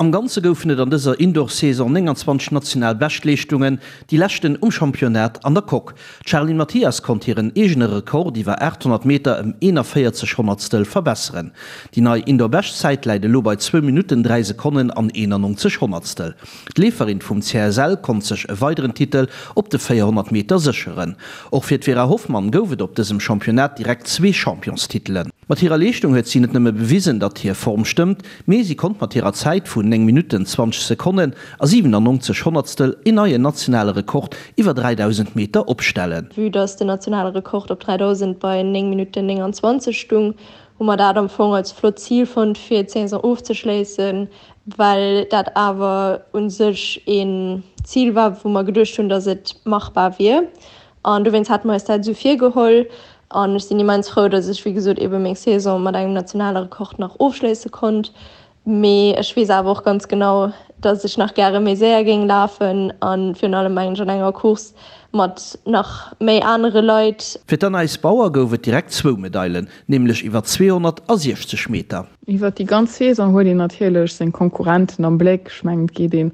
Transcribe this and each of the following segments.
Am Ganze goufen et an dëser Indoor-Saison 29 national Beschtleeschtungen, déi leschten um Championnat an der Coque. D'Charline Mathias konnt hiren eegene Rekord iwwer 800 Meter ëm 41 Honnertstel verbesseren. Déi nei Indoor-Beschtzäit läit elo bei zwou Minutten, 3 Sekonnen an 91 Honnertstel. D'Leeferin vum CSL konnt sech e weideren Titel op de 400 Meter sécheren. Och fir d'Vera Hoffmann gouf et op dësem Championnat direkt zwee Championstitelen. Mat hirer Leeschtung huet si net nëmme bewisen, datt hir Form stëmmt, mee si konnt mat hirer Zäit vun 9 Minutten, 20 Sekonnen a 97 Honnertstel een neien nationale Rekord iwwer 3.000 Meter opstellen. Vue dass den nationale Rekord op 3.000 bei 9 Minutten 29 stung, hu mer dat am Fong als flott Zil fonnt fir d'Saison ofzeschléissen, well dat awer u sech een Zil war, wou mer geduecht hunn, dass et machbar wier. An dowéinst hate mer eis dat esou virgeholl. An ech sinn immens frou, datt ech, wéi gesot, eebe meng Saison mat engem nationale Rekord nach ofschléisse konnt. Mee ech weess awer och ganz genau, datt ech nach gäre méi séier géing lafen a virun allem, mengen ech, an enger Course mat nach méi anere Leit. Fir d'Anaïs Bauer gouf et direkt zwou Medailen, nämlech iwwer 260 Meter. Iwwer déi ganz Saison huet een natierlech seng Konkurrenten am Bléck. Ech mengen, et geet een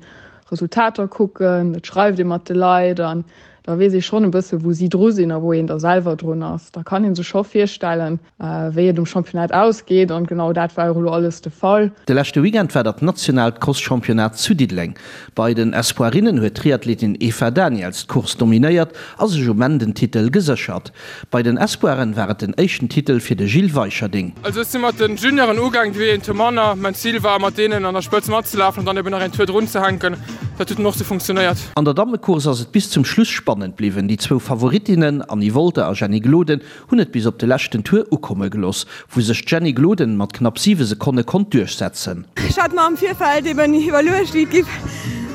Resultater kucken, et schreift ee mat de Leit an da weess ee schonn e bësse wou si dru sinn a wou een da selwer drun ass. Da kann ee sech scho virstellen, wéi et um Championnat ausgeet an genau dat war och elo alles de Fall. De leschte Weekend war dat nationaalt Crosschampionnat zu Diddeleng. Bei den Espoirinnen huet d'Triathletin Eva Daniels d'Course dominéiert a sech um Enn den Titel geséchert. Bei den Espoiren war et den éischten Titel fir de Gilles Weicherding. Also ech si mat den Junioren ugaang, déi een Tour manner. Mäin Zil war mat deenen an der Spëtz matzelafen an dann eben nach een Tour drun ze hänken. Dat huet dann och sou funktionéiert. An der Dammecourse ass et bis zum Schluss spannend bliwwen. Déi zwou Favoritinnen Annie Wolter a Jenny Gloden hunn et bis op de leschten Tour ukomme gelooss, wou sech d'Jenny Gloden mat knapp 7 Sekonne konnt duerchsetzen. Ech hat mer am Virfeld eben iwwerluecht, wéi et giff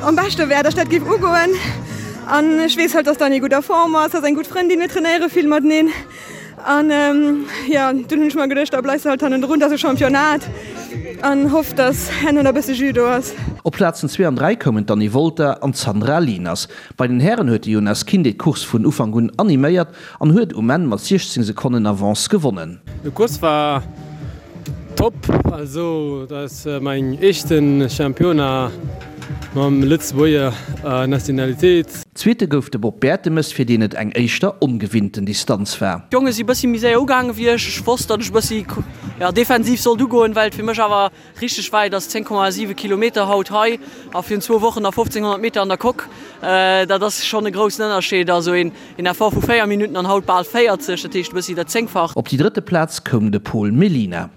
am beschte wär, dass ech dat giff ugoen. An ech weess halt, dass d'Annie gutt a Form ass, ass eng gutt Frëndin, mir trainéiere vill mateneen. An jo, dunn hunn ech mer geduecht, da bleifs de halt hannendrun, dat ass e Championnat an hoff, dass herno nach e bësse Jus do ass. Op Plazen zwee an 3 koumen d'Annie Wolter an d'Sandra Lieners. Bei den Hären huet de Jonas Kinde d'Course vun Ufank un animéiert an huet um Enn mat 16 Sekonnen Avance gewonnen. De Course war top, also dat ass mäin éischten Championnat mam Lëtzebuerger Nationalitéit. Zweete gouf de Bob Bertemes, fir deen et eng éischter ongewinnten Distanz war. D'Jonge si bëssi méi séier ugaange wéi ech. Ech wosst, datt ech bëssi defensiv sollt ugoen, well et fir mech awer Richteg wäit ass 10,7 Kilometer haut hei a virun zwou Wochen nach 1500 Meter an der Coque. Dat ass schonn e groussen Ënnerscheed. Also een Effort vu 4 Minutten an haut bal 40, dat heescht e bëssi dat Zéngfacht. Op déi drëtte Plaz koum de Pol Mellina.